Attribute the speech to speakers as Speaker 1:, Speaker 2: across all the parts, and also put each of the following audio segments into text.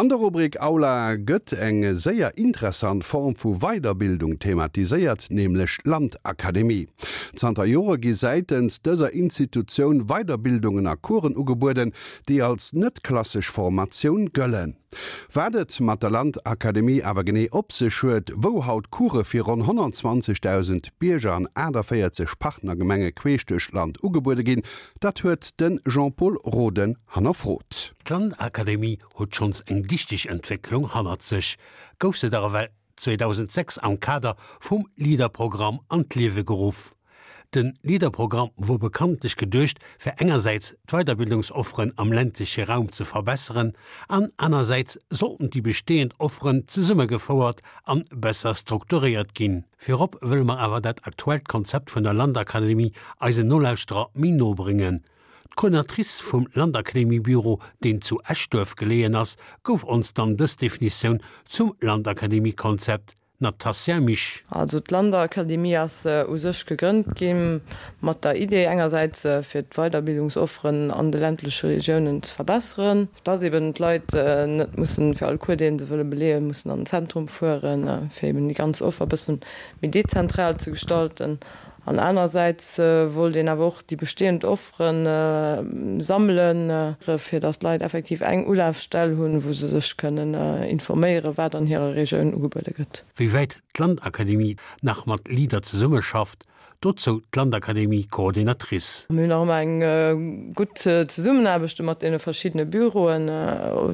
Speaker 1: An der Rubrik Aula gëtt eng séier interessant Form vu Weiderbildung thematiséiert, nämlech d'Landakademie. Zanter Jore gi säitens dëser Institutioun Weiderbildungen a Coursen ugebueden, déi als net klassesch Formatioun gëllen. Wat et mat der Landakademie awer genee op sech huet, wou haut Course fir ronn 120.000 Bierger an 48 Partnergemenge queesch duerch d'Land ugebuede ginn, dat huet de Jean-Pol Roden hannerfrot.
Speaker 2: D'Landakademie huet schonns eng dichteg Entwécklung hannert sech, gouf se dach ewell 2006 am Kader vum LEADER-Programm an d'Liewe geruff. De LEADER-Programm wor bekanntlech geduecht, fir engersäits d'Weiderbildungsofferen am ländleche Raum ze verbesseren an anersäits sollten déi bestehend Offeren zesummegefouert an besser strukturéiert ginn. Virop wëlle mer awer dat aktuellt Konzept vun der Landakademie eisen Nolauschterer méi no bréngen. D'Coordinatrice vum Landakademiebüro, deen zu Eschduerf geleeën ass, gouf ons dann dës Definitioun zum Landakademiekonzept, Natasja Misch.
Speaker 3: Also d'Landakademie ass u sech gegrënnt gi mat der Idee engersäits fir d'Weiderbildungsofferen an de ländleche Regiounen ze verbesseren, dass eben d'Leit net mussen fir all Cours dee se wëlle beleeën, mussen an den Zentrum fueren, fir eben déi ganz Offer e bëssen méi dezentral ze gestalten. An anersäits wollt een awer och déi bestehend Offere sammelen, fir datt d'Leit effektiv eng Ulafstell hunn, wou se sech kënnen informéieren, wat an hirer Regioun ugebuede gëtt.
Speaker 2: Wéi wäit d'Landakademie nach mat Leader zesummeschafft, dozou d'Landakademie-Coordinatrice.
Speaker 3: Mir hunn nach ëmmer eng gutt Zesummenaarbecht mat deene verschiddene Büroen,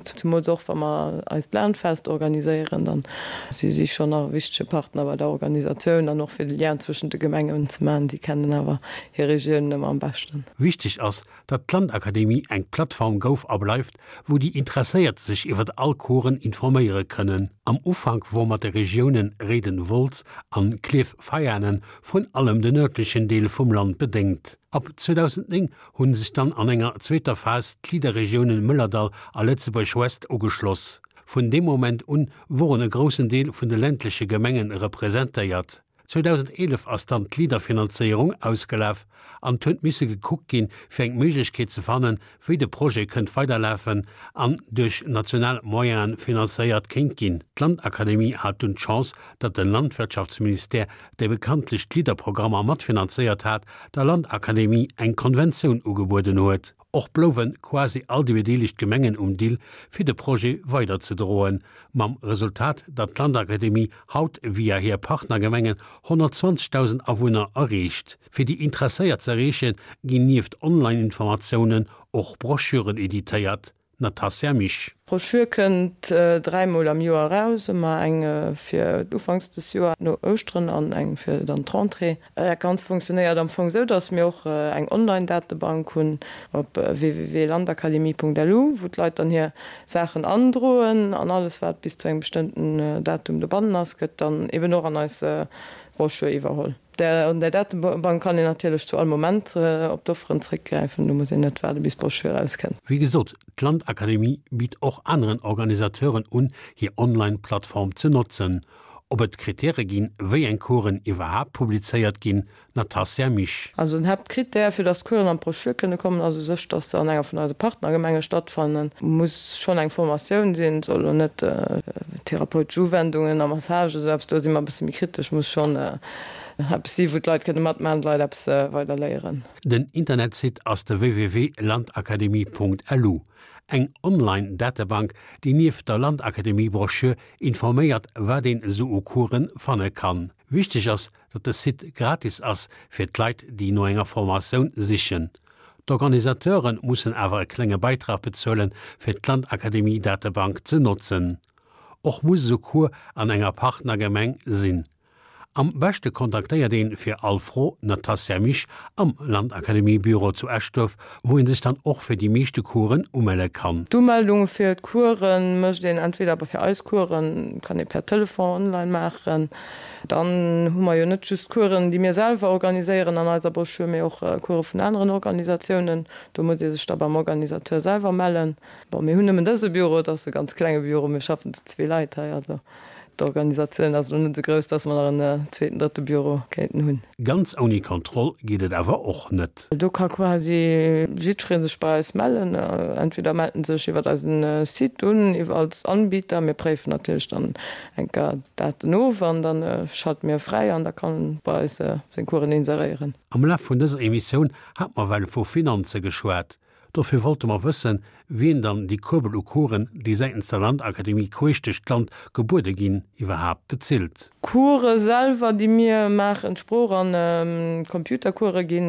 Speaker 3: zemools och wa mer eist Landfest organiséieren, dann Si si schonn nach e wichtege Partner bei der Organisatioun an och fir de Lien zwëschent de Gemengen ze maachen. Si kennen awer hir Regiounen ëmmer am beschten.
Speaker 2: Wichteg ass, datt d'Landakademie eng Plattform gouf a bleift, wou déi Interesséiert sech iwwert all Coursen informéiere kënnen. Am Ufank wor mat de Regiounen Réiden-Wolz an Klierf-Veianen vrun allem de nërdlechen Deel vum Land bedéngt. Ab 2009 hunn sech dann an enger zweeter Phas d'Leader-Regiounen Mëllerdall a Lëtzebuerg-Ouest ugeschloss. Vun deem Moment un woren e groussen Deel vun de ländleche Gemengen representéiert. 2011 ass dann d'Leader-Finanzéierung ausgelaf an 't huet misse gekuckt ginn, fir eng Méiglechkeet ze fannen, wéi de Projet kënnt weiderlafen an duerch national Moyenen finanzéiert kéint ginn. D'Landakademie hat dunn d'Chance, datt de Landwirtschaftsministère, dee bekanntlech d'Leader-Programmer matfinanzéiert hat, der Landakademie eng Konventioun ugebueden huet. Och blouwe quasi all déi bedeelegt Gemengen um Dill, fir de Projet weiderzedroen, mam Resultat, datt d'Landakademie haut via hir Partnergemengen 120.000 Awunner erreecht. Fir déi Interesséiert z'erreechen, ginn nieft Online-Informatiounen och Broschüren editéiert. Natasja Misch.
Speaker 3: D'Broschür kënnt dräimol am Joer eraus, ëmmer eng fir ufanks des Joer no Ouschteren an eng fir dann d'Rentrée. Dat Ganzt funktionéiert am Fong esou, dass mir och eng Online-Datebank hunn op www.landakademie.lu, wou d'Leit dann hir Saachen androen an alles wat bis zu engem bestëmmten Datum dobannen ass, gëtt dann eben och an eis Broschür iwwerholl. An där Datebank kann een natierlech zu all Moment op d'Offeren zréckgräifen, do muss een net waarde bis d'Broschür erauskënnt.
Speaker 2: Wéi gesot, d'Landakademie bitt och aneren Organisateuren un, hir Online-Plattform ze notzen. Ob et Krittäre ginn, wéi eng Coursen iwwerhaapt publizéiert ginn, Natasja Misch.
Speaker 3: Also den Haaptkrittär, fir datt d'Coursen an d'Broschür kënne kommen, ass u sech, datt se an enger vun eise Partnergemenge stattfannen. Muss schonn eng Formatioun sinn, soll elo net therapeutesch Uwendungen a Massage, esou eppes, do si mer e bësse méi kritesch, muss schonn eppes si wou d'Leit kënne matmaachen, d'Leit eppes weider léieren.
Speaker 2: Den Internetsite ass de www.landakademie.lu, eng Online-Datebank, déi nieft der Landakademie-Broschür informéiert, wat een esou u Coursen fanne kann. Wichteg ass, datt de Site gratis ass fir d'Leit, déi no enger Formatioun sichen. D'Organisateure mussen awer e klenge Beitrag bezuelen, fir d'Landakademie-Datebank ze notzen. Och muss esou Cours an enger Partnergemeng sinn. Am beschte kontaktéiert een fir all Fro d'Natasja Misch am Landakademie-Büro zu Eschduerf, wou een sech dann och fir déi meeschte Coursen umelle kann.
Speaker 3: D'Umeldung fir d'Coursen mécht een entweder fir eis Coursen, kann ee per Telefon online maachen. Dann hu mer jo net just Coursen, déi mir selwer organiséieren an eiser Broschür, mee och Course vun aneren Organisatiounen. Do muss ee sech da beim Organisateur selwer mellen. Bon, mir hunn nëmmen dëse Büro, et ass e ganz klenge Büro, mir schaffen zu zwee Leit hei, also. D'Organisatioun ass elo net esou grouss, dass mer nach en zweeten, drëtte Büro kéinten hunn.
Speaker 2: Ganz ouni Kontroll geet et awer och net.
Speaker 3: Do ka quasi jiddweree sech bei eis mellen. Entweder mellt en sech iwwer eisen Site un, iwwer als Anbieter. Mir préifen natierlech dann eng Kéier d'Daten of an da schalte mir e fräi an da kann en bei eis seng Coursen inseréieren.
Speaker 2: Am Laf vun dëser Emissioun hat mer well vu Finanze geschwat. Dofir wollte mer wëssen, wien dann déi Kuerbel u Coursen, déi säitens der Landakademie queesch duerch d'Land gebuede ginn, iwwerhaapt bezilt.
Speaker 3: D'Course selwer, déi mir maachen, d'Sprooch an d'Computercourse gi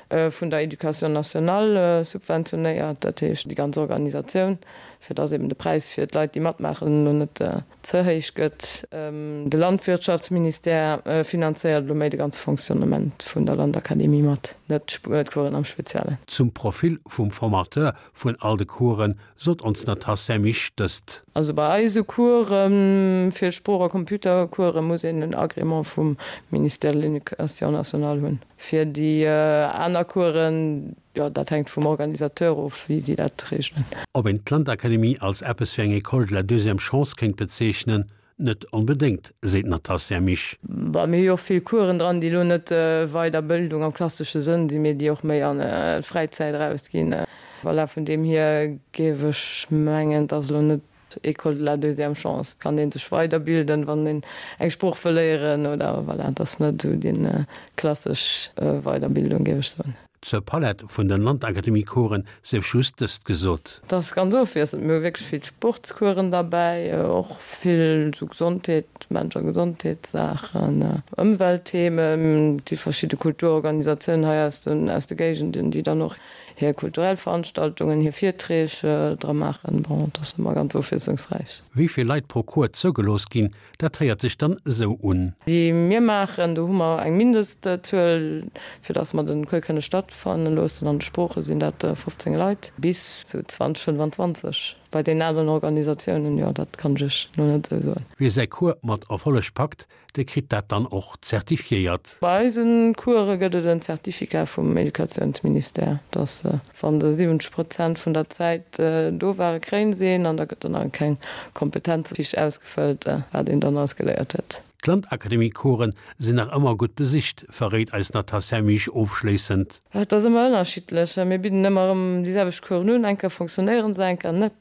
Speaker 3: vun der Education nationale subventionéiert, dat heescht déi ganz Organisatioun, fir dass eben de Präis fir d'Leit, déi matmaachen, elo net ze héich gëtt. De Landwirtschaftsministère finanzéiert elo méi de ganze Fonctionnement vun der Landakademie mat, net d'Coursen am Speziellen.
Speaker 2: Zum Profil vum Formateur vun all de Coursen sot ons d'Natasja Misch dëst.
Speaker 3: Also bei eise Coursen, fir Sprooch a Computercoursen, muss een en Agrément vum Ministère de l'Éducation nationale hunn. Fir déi aner Coursen, Jo, dat hänkt vum Organisateur of, wéi si dat reegelen.
Speaker 2: Ob een d'Landakademie als eppes wéi eng École de la deuxième chance kéint bezeechnen? Net onbedéngt, seet d'Natasja Misch.
Speaker 3: Bon, mir hu jo och vill Coursen dran, déi elo net Weiderbildung am klassesche Sënn sinn, mee déi och méi an d'Fräizäit erausginn. Voilà, vun deem hier géif ech mengen, et ass elo net École de la deuxième chance, kann een sech weiderbilden, wann een eng Sprooch wëll léieren oder voilà, et ass net esou déi klassesch Weiderbildung, géif ech soen.
Speaker 2: Zur Palett vun den Landakademie-Coursen sief just dëst gesot.
Speaker 3: Et ass ganz ofwiesselnd, mir hu wierklech vill Sportscoursen derbäi, och vill esou Gesondheet, Mensch a Gesondheetssaachen, Ëmweltthemen, et si verschidde Kulturorganisatiounen hei aus den aus de Géigenden, déi dann och hir kulturell Veranstaltungen, hir Virträg dra maachen. Bon, et ass ëmmer ganz ofwiesslungsräich.
Speaker 2: Wéi vill Leit pro Cours zougelooss ginn, dat héiert sech dann esou un.
Speaker 3: Déi mir maachen, do hu mer eng Mindestzuel, fir datt mer de Cours kënne stattfanne loossen. An de Sprooche sinn dat 15 Leit, bis zu 20, 25 bei deenen aneren Organisatiounen. Jo, dat kann ech Iech elo net esou soen.
Speaker 2: Wie säi Cours mat Erfolleg packt, dee kritt dat dann och zertifiéiert.
Speaker 3: Bei eise Course gëtt et en Certificat vum Educatiounsministère, dass wa se 70 Prozent vun der Zäit do ware kréien se een an da gëtt dann nach eng kleng Kompetenzfiche ausgefëllt, wat een dann alles geléiert huet.
Speaker 2: D'Landakademie-Coursen sinn nach ëmmer gutt besicht, verréit eis Natasja Misch ofschléissend.
Speaker 3: Et ass ëmmer ënnerschiddlech. Mir bidden ëmmer erëm déi selwecht Coursen un. Eng Kéier fonctionnéiere se, eng Kéier net.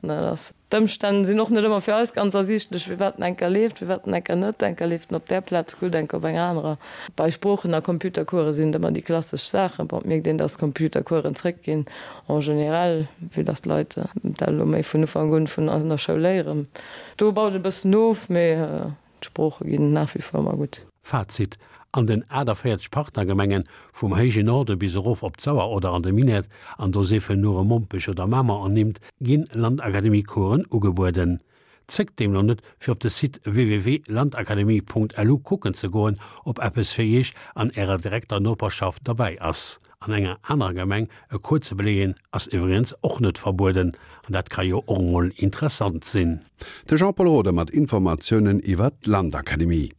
Speaker 3: D'Ëmstänn sinn och net ëmmer fir eis ganz ersiichtlech, firwat en enker leeft, firwat en enker net. Enker leeft en op där Plaz gutt, enker op enger anerer. Bei Sproochen a Computercourse sinn et ëmmer déi klassesch Saachen. Bon, et mierkt een, dass Computercoursen zréckginn en général, vue dass d'Leit dat elo méi vun Ufank un vun an der Schoul léieren. Do baut et e bëssen of, mee D'Sprooche ginn nach wie vor ëmmer gutt.
Speaker 2: Fazit, An den 48 Partnergemengen, vum héije Norde bis erof op d'Sauer oder an de Minett, an do siefen nure Mompech oder Mamer ernimmt, ginn Landakademie-Coursen ugebueden. Zéckt deemno net, fir op de Site www.landakademie.lu kucken ze goen, ob eppes fir Iech an Ärer direkter Noperschaft derbäi ass. An enger anerer Gemeng e Cours ze beleeën ass iwwregens och net verbueden, an dat ka jo och emol interessant sinn.
Speaker 1: De Jean-Paul Roeder mat Informatiounen iwwer d'Landakademie.